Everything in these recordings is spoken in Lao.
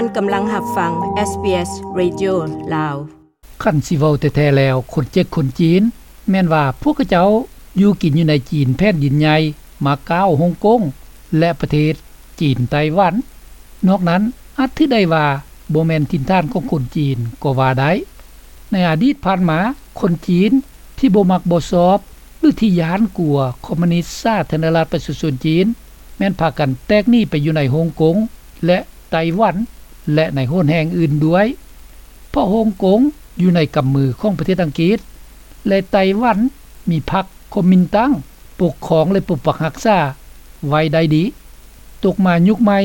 ທ່ານກຳລັງຮັບຟັງ ເອສບີເອສ Radio ລາວ. ຄັນຊິເວົ້າແທ້ໆແລ້ວ ຄົນເຈັກຄົນຈີນ ແມ່ນວ່າພວກເຂົາເຈົ້າຢູ່ກິນຢູ່ໃນຈີນແຜ່ນດິນໃຫຍ່ ມາກ້າວ ຮົງກົງ ແລະ ປະເທດຈີນໄຕ້ຫວັນ. ນອກນັ້ນອາດຖືໄດ້ວ່າບໍ່ແມ່ນຖິ່ນຖານຂອງຄົນຈີນກໍວ່າໄດ້. ໃນອະດີດຜ່ານມາ ຄົນຈີນທີ່ບໍ່ມັກບໍ່ຊອບ ຫຼື ທີ່ຢ້ານກົວຄອມມູນິດສາທາລະນະລັດປະຊາຊົນຈີນ ແມ່ນພາກັນແຕກໜີໄປຢູ່ໃນຮົງກົງ ແລະ ໄຕ້ຫວັນ ແລະ ໃນໂຫນແຫ່ງອື່ນດ້ວຍ ເພາະຮົງກົງຢູ່ໃນກຳມືຂອງປະເທດອັງກິດ ແລະ ໄຕ້ຫວັນມີພັກຄອມມິນຕັງປົກຄອງ ແລະ ປົກປັກຮັກສາໄວ້ໄດ້ດີ. ຕົກມາຍຸກໃໝ່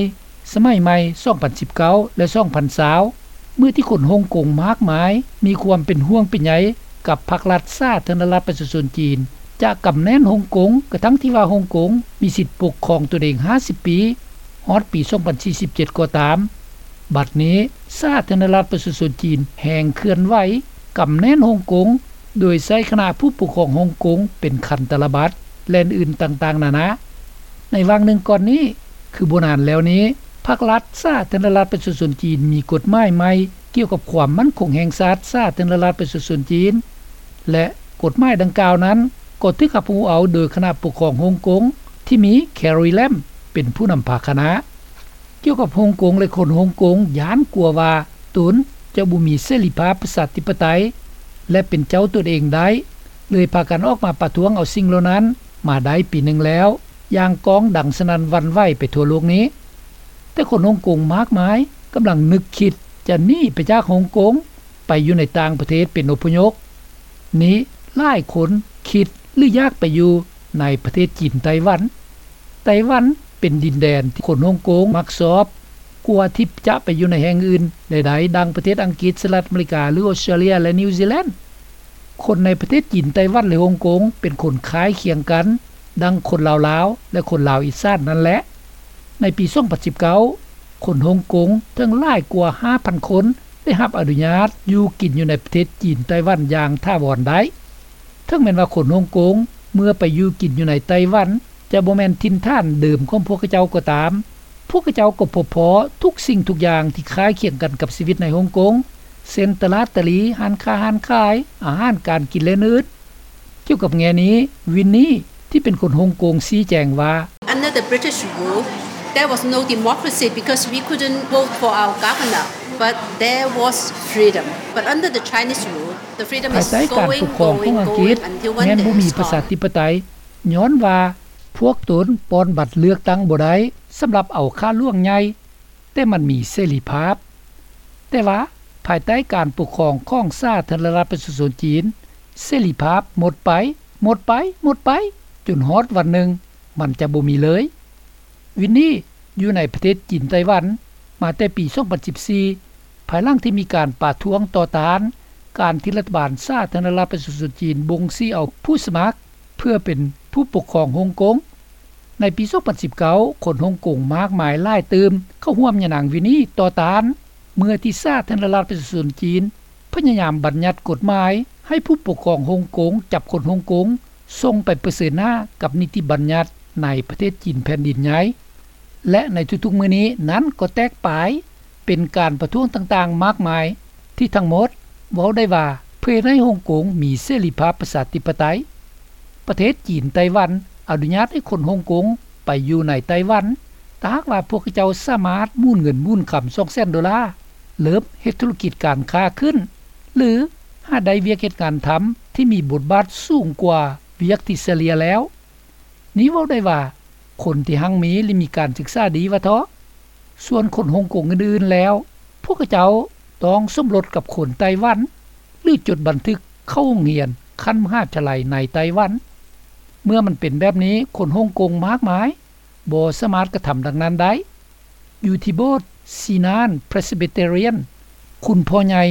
ສະໄໝໃໝ່ ສອງພັນສິບເກົ້າ ແລະ ສອງພັນຊາວ ເມື່ອທີ່ຄົນຮົງກົງມາກມາຍມີຄວາມເປັນຫ່ວງເປັນໃຍກັບພັກລັດສາທາລະນະລັດປະຊາຊົນຈີນ ຈະກຳແໜ້ນຮົງກົງ ກະທັ່ງທີ່ວ່າຮົງກົງມີສິດປົກຄອງຕົນເອງຫ້າສິບປີ ຮອດປີສອງພັນສີ່ສິບເຈັດກໍຕາມ, ບັດນີ້ສາທາລະນະລັດປະຊາຊົນຈີນແຮ່ງເຄື່ອນໄຫວກຳແໜ້ນຮົງກົງ ໂດຍໃຊ້ຄະນະຜູ້ປົກຄອງຮົງກົງເປັນຄັນຕະລະບັດ ແລະ ອື່ນໆຕ່າງໆນານາ. ໃນຫວ່າງໜຶ່ງກ່ອນນີ້ ຄືບໍ່ນານແລ້ວນີ້ ພັກລັດສາທາລະນະລັດປະຊາຊົນຈີນມີກົດໝາຍໃໝ່ກ່ຽວກັບຄວາມໝັ້ນຄົງແຫ່ງຊາດສາທາລະນະລັດປະຊາຊົນຈີນ ແລະ ກົດໝາຍດັ່ງກ່າວນັ້ນກໍຖືກຮັບຮູ້ເອົາໂດຍຄະນະປົກຄອງຮົງກົງ ທີ່ມີ Carrie Lam ເປັນຜູ້ນຳພາຄະນະ. ກ່ຽວກັບຮົງກົງ ແລະ ຄົນຮົງກົງຢ້ານກົວວ່າຕົນຈະບໍ່ມີເສລີພາບປະຊາທິປະໄຕ ແລະ ເປັນເຈົ້າຕົນເອງໄດ້ ເລີຍພາກັນອອກມາປະທ້ວງເອົາສິ່ງເຫຼົ່ານັ້ນມາໄດ້ປີໜຶ່ງແລ້ວ ຢ່າງກ້ອງດັງສະໜັ່ນຫວັ່ນໄຫວໄປທົ່ວໂລກນີ້. ແຕ່ຄົນຮົງກົງມາກມາຍກຳລັງນຶກຄິດຈະໜີໄປຈາກຮົງກົງ ໄປຢູ່ໃນຕ່າງປະເທດເປັນອົບພະຍົບ. ນີ້ຫຼາຍຄົນຄິດ ຫຼື ຢາກໄປຢູ່ໃນປະເທດຈີນໄຕ້ຫວັນ. ໄຕ້ຫວັນເປັນດິນແດນທີ່ຄົນຮົງກົງມັກຊອບ ກວ່າທີ່ຈະໄປຢູ່ໃນແຫ່ງອື່ນໃດໆ ດັ່ງປະເທດອັງກິດ, ສະຫະລັດອາເມລິກາ ຫຼື ອົດສະຕຣາເລຍ ແລະ ນິວຊີແລນ. ຄົນໃນປະເທດຈີນ, ໄຕ້ຫວັນ ແລະ ຮົງກົງ ເປັນຄົນຄ້າຍຄຽງກັນ ດັ່ງຄົນລາວລາວ ແລະ ຄົນລາວອີສານນັ້ນແຫຼະ. ໃນປີສອງພັນສິບເກົ້າ ຄົນຮົງກົງເຖິງຫຼາຍກວ່າຫ້າພັນຄົນ ໄດ້ຮັບອະນຸຍາດຢູ່ກິນຢູ່ໃນປະເທດຈີນໄຕ້ຫວັນຢ່າງຖາວອນໄດ້. ເຖິງແມ່ນວ່າຄົນຮົງກົງເມື່ອໄປຢູ່ກິນຢູ່ໃນໄຕ້ຫວັນ ຈະບໍ່ແມ່ນຖິ່ນຖານເດີມຂອງພວກເຂົາເຈົ້າກໍຕາມ, ພວກເຂົາເຈົ້າກໍພົບພໍ້ທຸກສິ່ງທຸກຢ່າງທີ່ຄ້າຍຄຽງກັນກັບຊີວິດໃນຮົງກົງ ເຊັ່ນ ຕະຫຼາດຕະຫຼີ, ຮ້ານຄ້າຮ້ານຂາຍ, ອາຫານການກິນ ແລະ ອື່ນໆ. ກ່ຽວກັບແງ່ນີ້ ວິນນີ ທີ່ເປັນຄົນຮົງກົງຊີ້ແຈງວ່າ Under the British rule, there was no democracy because we couldn't vote for our governor, but there was freedom. But under the Chinese rule, the freedom ພາຍ is ໃຕ້ການປົກຄອງຂອງອັງກິດ ແມ່ນບໍ່ມີປະຊາທິປະໄຕ ຍ້ອນວ່າພວກຕົນປ່ອນບັດເລືອກຕັ້ງບໍ່ໄດ້ສຳລັບເອົາຂ້າຫຼວງໃຫຍ່ ແຕ່ມັນມີເສລີພາບ. ແຕ່ວ່າພາຍໃຕ້ການປົກຄອງຂອງສາທາລະນະລັດປະຊາຊົນຈີນ ເສລີພາບໝົດໄປ, ໝົດໄປ, ໝົດໄປ, ຈົນຮອດວັນໜຶ່ງມັນຈະບໍ່ມີເລີຍ. ວິນນີ ຢູ່ໃນປະເທດຈີນໄຕ້ຫວັນມາແຕ່ປີສອງພັນສິບສີ່ ພາຍຫຼັງທີ່ມີການປະທ້ວງຕໍ່ຕ້ານການທີ່ລັດຖະບານສາທາລະນະລັດປະຊາຊົນຈີນບົ່ງຊີ້ເອົາຜູ້ສະໝັກເພື່ອເປັນຜູ້ປົກຄອງຮົງກົງ. ໃນປີສອງພັນສິບເກົ້າ ຄົນຮົງກົງມາກມາຍຫຼາຍຕື່ມເຂົ້າຮ່ວມຍານາງວິນນີຕໍ່ຕ້ານ ເມື່ອທີ່ສາທາລະນະລັດປະຊາຊົນຈີນພະຍາຍາມບັນຍັດກົດໝາຍໃຫ້ຜູ້ປົກຄອງຮົງກົງຈັບຄົນຮົງກົງ ສົ່ງໄປປະເຊີນໜ້າກັບນິຕິບັນຍັດໃນປະເທດຈີນແຜ່ນດິນໃຫຍ່ ແລະ ໃນທຸກໆມື້ນີ້ນັ້ນກໍແຕກປາຍເປັນການປະທ້ວງຕ່າງໆມາກມາຍ ທີ່ທັງໝົດເວົ້າໄດ້ວ່າເພື່ອເຮັດໃຫ້ຮົງກົງມີເສລີພາບປະຊາທິປະໄຕ. ປະເທດຈີນໄຕ້ຫວັນອະນຸຍາດໃຫ້ຄົນຮົງກົງໄປຢູ່ໃນໄຕ້ຫວັນ ຖ້າຫາກວ່າພວກເຂົາເຈົ້າສາມາດໝູນເງິນໝູນຄຳສອງແສນໂດລາ, ເລີ່ມເຮັດທຸລະກິດການຄ້າຂຶ້ນ ຫຼື ຫາໄດ້ວຽກເຮັດງານທຳທີ່ມີບົດບາດສູງກວ່າວຽກທີ່ສະເລ່ຍແລ້ວ. ນີ້ເວົ້າໄດ້ວ່າຄົນທີ່ຮັ່ງມີ ແລະ ມີການສຶກສາດີວ່າເທາະ. ສ່ວນຄົນຮົງກົງອື່ນໆແລ້ວ ພວກເຂົາເຈົ້າຕ້ອງສົມລົດກັບຄົນໄຕ້ຫວັນ ຫຼື ຈົດບັນທຶກເຂົ້າໂຮງຮຽນຂັ້ນມະຫາວິທະຍາໄລໃນໄຕ້ຫວັນ. ເມື່ອມັນເປັນແບບນີ້ ຄົນຮົງກົງມາກມາຍບໍ່ສາມາດກະທຳດັ່ງນັ້ນໄດ້. ຢູ່ທີ່ໂບດຊີນານ Presbyterian ຄຸນພໍ່ໃຫຍ່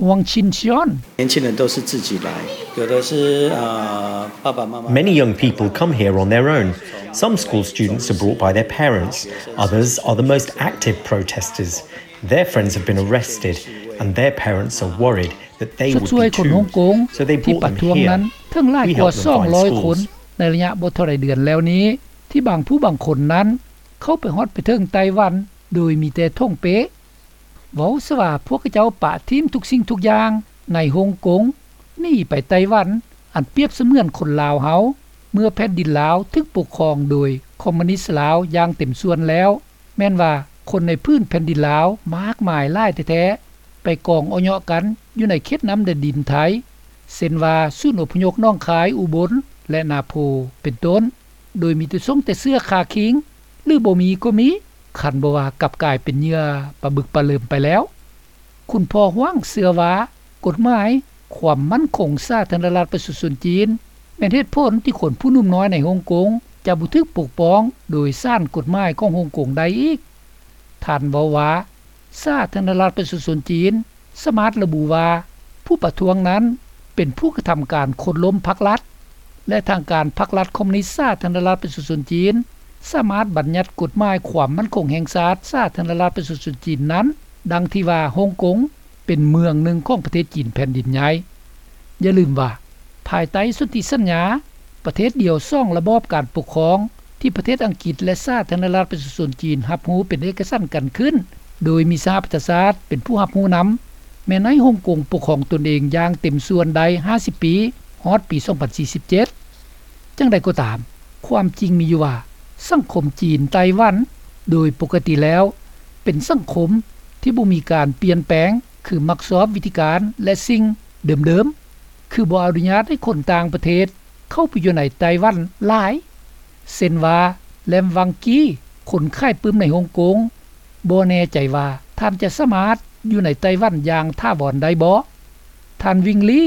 ຫວງຊິນຊຽນ 年轻人都是自己来，有的是，呃，爸爸妈妈 Many young people come here on their own. Some school students are brought by their parents. Others are the most active protesters. Their friends have been arrested, and their parents are worried that they would be too. ຊົດຊ່ວຍຄົນຮົງກົງ So they brought them here. ທີ່ປະທ້ວງນັ້ນເຖິງຫຼາຍກວ່າສອງຮ້ອຍຄົນ We helped them find schools. ໃນໄລຍະບໍ່ເທົ່າໃດເດືອນແລ້ວນີ້ ທີ່ບາງຜູ້ບາງຄົນນັ້ນເຂົ້າໄປຮອດໄປເຖິງໄຕ້ຫວັນໂດຍມີແຕ່ຖົງເປ້. ເວົ້າຊະວ່າພວກເຂົາເຈົ້າປະຖິ້ມທຸກສິ່ງທຸກຢ່າງໃນຮົງກົງ ໜີໄປໄຕ້ຫວັນ ອັນປຽບສະເໝືອນຄົນລາວເຮົາ ເມື່ອແຜ່ນດິນລາວຖືກປົກຄອງໂດຍຄອມມູນິດລາວຢ່າງເຕັມສ່ວນແລ້ວ ແມ່ນວ່າຄົນໃນພື້ນແຜ່ນດິນລາວມາກມາຍຫຼາຍແທ້ໆ ໄປກອງເອາະເຍາະກັນຢູ່ໃນເຂດນ້ຳແດນດິນໄທ ເຊັ່ນວ່າສູນອົບພະຍົບໜອງຄາຍ, ອຸບົນ ແລະ ນາໂພ ເປັນຕົ້ນ ໂດຍມີແຕ່ຊົງແຕ່ເສື້ອຄາຄີງ ຫຼື ບໍ່ມີກໍມີ ຄັນບໍ່ວ່າກັບກາຍເປັນເຫຍື່ອປາບຶກປາເລິມໄປແລ້ວ. ຄຸນພໍ່ຫວັງເຊື່ອວ່າ ກົດໝາຍຄວາມໝັ້ນຄົງສາທາລະນະລັດປະຊາຊົນຈີນ ແມ່ນເຫດຜົນທີ່ຄົນຜູ້ໜຸ່ມນ້ອຍໃນຮົງກົງຈະບໍ່ຖືກປົກປ້ອງໂດຍສານກົດໝາຍຂອງຮົງກົງໄດ້ອີກ. ທ່ານເວົ້າວ່າ ສາທາລະນະລັດປະຊາຊົນຈີນສາມາດລະບຸວ່າ ຜູ້ປະທ້ວງນັ້ນເປັນຜູ້ກະທຳການໂຄ່ນລົ້ມພັກລັດ ແລະ ທາງການພັກລັດຄອມມູນິດສາທາລະນະລັດປະຊາຊົນຈີນ ສາມາດບັນຍັດກົດໝາຍຄວາມໝັ້ນຄົງແຫ່ງຊາດສາທາລະນະລັດປະຊາຊົນຈີນນັ້ນ ດັ່ງທີ່ວ່າຮົງກົງເປັນເມືອງໜຶ່ງຂອງປະເທດຈີນແຜ່ນດິນໃຫຍ່. ຢ່າລືມວ່າ ພາຍໃຕ້ສົນທິສັນຍາ ປະເທດດຽວສອງລະບອບການປົກຄອງ ທີ່ປະເທດອັງກິດ ແລະ ສາທາລະນະລັດປະຊາຊົນຈີນຮັບຮູ້ເປັນເອກະສັນກັນຂຶ້ນ ໂດຍມີສະຫະປະຊາຊາດເປັນຜູ້ຮັບຮູ້ນຳ ແມ່ນໃຫ້ຮົງກົງປົກຄອງຕົນເອງຢ່າງເຕັມສ່ວນໄດ້ຫ້າສິບປີ ຮອດປີສອງພັນສີ່ສິບເຈັດ. ຈັ່ງໃດກໍຕາມ, ຄວາມຈິງມີຢູ່ວ່າ ສັງຄົມຈີນ-ໄຕ້ຫວັນ ໂດຍປົກກະຕິແລ້ວ ເປັນສັງຄົມທີ່ບໍ່ມີການປ່ຽນແປງ ຄືມັກຊອບວິທີການ ແລະ ສິ່ງເດີມໆ ຄືບໍ່ອະນຸຍາດໃຫ້ຄົນຕ່າງປະເທດເຂົ້າໄປຢູ່ໃນໄຕ້ຫວັນຫຼາຍ ເຊັ່ນວ່າ ແລມວັງກີ ຄົນຂາຍປຶ້ມໃນຮົງກົງ ບໍ່ແນ່ໃຈວ່າທ່ານຈະສາມາດຢູ່ໃນໄຕ້ຫວັນຢ່າງຖາວອນໄດ້ບໍ່? ທ່ານ ວິງລີ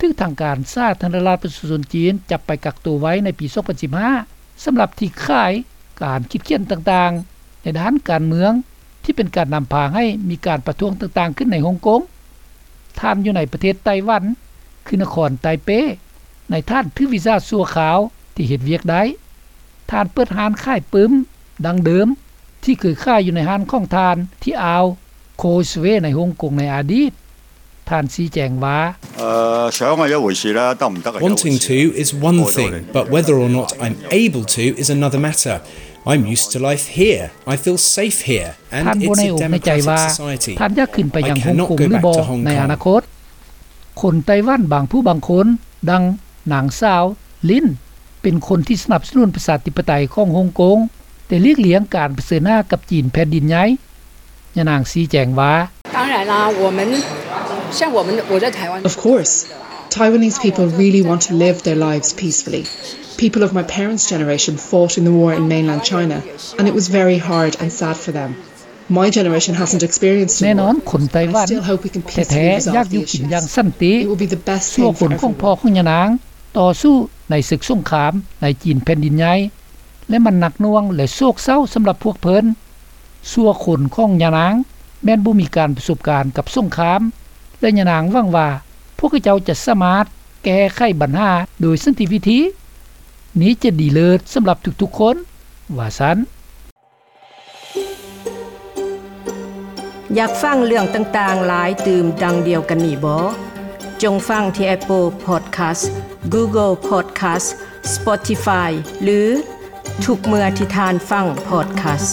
ຖືກທາງການສາທາລະນະລັດປະຊາຊົນຈີນຈັບໄປກັກໂຕໄວ້ໃນປີສອງພັນສິບຫ້າ ສຳລັບທີ່ຂາຍການຄິດຂຽນຕ່າງໆໃນດ້ານການເມືອງ ທີ່ເປັນການນຳພາໃຫ້ມີການປະທ້ວງຕ່າງໆຂຶ້ນໃນຮົງກົງ. ທ່ານຢູ່ໃນປະເທດໄຕ້ຫວັນ ຄືນະຄອນໄຕເປ ໃນຖານຖືກວີຊາຊົ່ວຄາວທີ່ເຮັດວຽກໄດ້. ທ່ານເປີດຮ້ານຂາຍປຶ້ມດັ່ງເດີມ ທີ່ເຄີຍຂາຍຢູ່ໃນຮ້ານຂອງທ່ານທີ່ອ່າວໂຄສເວໃນຮົງກົງໃນອະດີດ. ທ່ານຊີ້ແຈງວ່າ Wanting to is one thing, but whether or not I'm able to is another matter. I'm used to life here. I feel safe here, and it's a democratic society. ທ່ານບໍ່ແນ່ອົກແນ່ໃຈວ່າ ທ່ານຢາກຂຶ້ນໄປຍັງຮົງກົງຫຼືບໍ່ໃນອະນາຄົດ. ຄົນໄຕ້ຫວັນບາງຜູ້ບາງຄົນ ດັ່ງນາງສາວ ລິນ ເປັນຄົນທີ່ສະໜັບສະໜູນປະຊາທິປະໄຕຂອງຮົງກົງ ແຕ່ຫຼີກລ່ຽງການປະເຊີນໜ້າກັບຈີນແຜ່ນດິນໃຫຍ່. ຍານາງຊີ້ແຈງວ່າ Of course, Taiwanese people really want to live their lives peacefully. People of my parents' generation fought in the war in mainland China, and it was very hard and sad for them. My generation hasn't experienced the war. ແນ່ນອນ ຄົນໄຕ້ຫວັນແທ້ໆຢາກຢູ່ກິນຢ່າງສັນຕິ. ຊົ່ວຄົນຂອງພໍ່ຂອງຍານາງຕໍ່ສູ້ໃນເສິກສົງຄາມໃນຈີນແຜ່ນດິນໃຫຍ່ ແລະ ມັນໜັກໜ່ວງ ແລະ ໂສກເສົ້າສຳລັບພວກເພິ່ນ. ຊົ່ວຄົນຂອງຍານາງແມ່ນບໍ່ມີການປະສົບການກັບສົງຄາມ ແລະ ຍານາງຫວັງວ່າພວກເຂົາເຈົ້າຈະສາມາດແກ້ໄຂບັນຫາໂດຍສັນຕິວິທີ. ນີ້ຈະດີເລີດສຳລັບທຸກໆຄົນ, ວ່າຊັ້ນ. ຢາກຟັງເລື່ອງຕ່າງໆຫຼາຍຕື່ມດັ່ງດຽວກັນນີ້ບໍ? ຈົ່ງຟັງທີ່ Apple Podcast, Google Podcast, Spotify ຫຼື ທຸກເມື່ອທີ່ທ່ານຟັງ podcast.